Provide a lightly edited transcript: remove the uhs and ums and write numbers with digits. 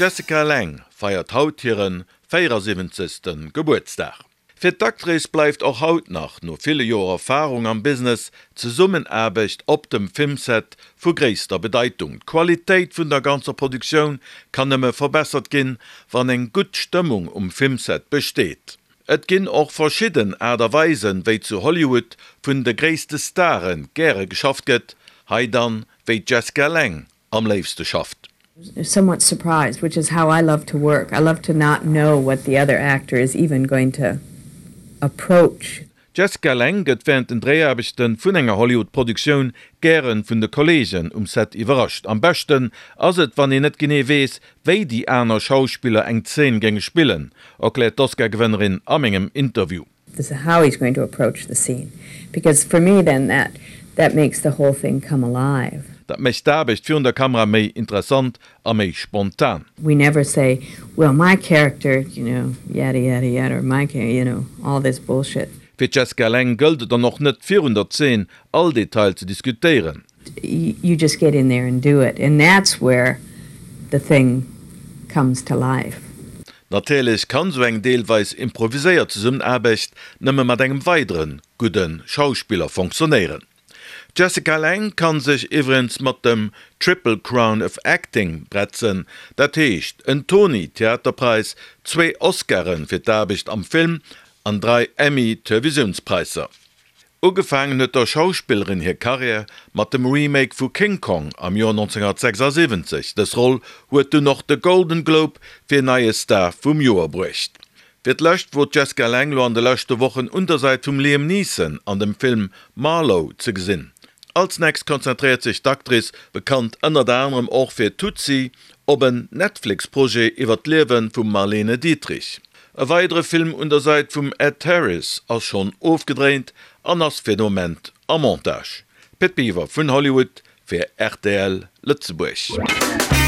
D'Jessica Lange feiert haut hire 74. Gebuertsdag. Fir d'Actrice bleift och haut nach, no ville Joer Erfarung am Business, d'Zesummenaarbecht op dem Filmset vu gréisster Bedeitung. D'Qualitéit vun der ganzer Produktioun kann nëmme verbessert ginn, wann eng gutt Stëmmung um Filmset besteet. Et ginn och verschidden Aart a Weisen, wéi zu Hollywood vun de gréisste Stare gäre geschafft gëtt, hei dann, wéi d'Jessica Lange am léifste schafft. Somewhat surprised, which is how I love to work. I love to not know what the other actor is even going to approach. D'Jessica Lange gëtt wärend den Dréiaarbechte vun enger Hollywood-Produktioun gäre vun de Kolleegen um Set iwwerrascht. Am beschten ass et, wann een net genee weess, wéi déi aner Schauspiller eng Zeen géinge spillen, erkläert d'Oscar-Gewënnerin a mengem Interview. This is how he's going to approach the scene because for me then that that makes the whole thing come alive. Dat mécht d'Aarbecht virun der Kamera méi interessant a méi spontan. We never say, well my character, you know, yada yada yada or my char, you know, all this bullshit. Fir d'Jessica Lange gëllt et dann och net virun der Zeen all Detail ze diskutéieren. You just get in there and do it and that's where the thing comes to life. Natierlech kann sou eng deelweis improviséiert Zesummenaarbecht nëmme mat engem weidere gudde Schauspiller fonctionnéieren. D'Jessica Lange kann sech iwwregens mat dem Triple Crown of Acting bretzen, dat heescht en Tony Theaterpräis, zwee Oscare fir d'Aarbecht am Film an 3 Emmy Televisiounspräisser. Ugefaangen huet der Schauspillerin hir Karriär mat dem Remake vu King Kong am Joer 1976. Dës Roll huet dunn och de Golden Globe fir neie Star vum Joer bruecht. Fir d'lescht wor d'Jessica Lange lo an de leschte Wochen un der Säit vum Liam Neeson an dem Film Marlowe ze gesinn. Als nächst konzentréiert sech d'Actrice, bekannt ënnert anerem och fir Tootsie, op en Netflix-Projet iwwer d'Liewe vum Marlene Dietrich. E weidere Film un der Säit vum Ed Harris ass schonn ofgedréint an ass fir de Moment am Montage. Pit Biwer vun Hollywood fir rtl Lëtzebuerg.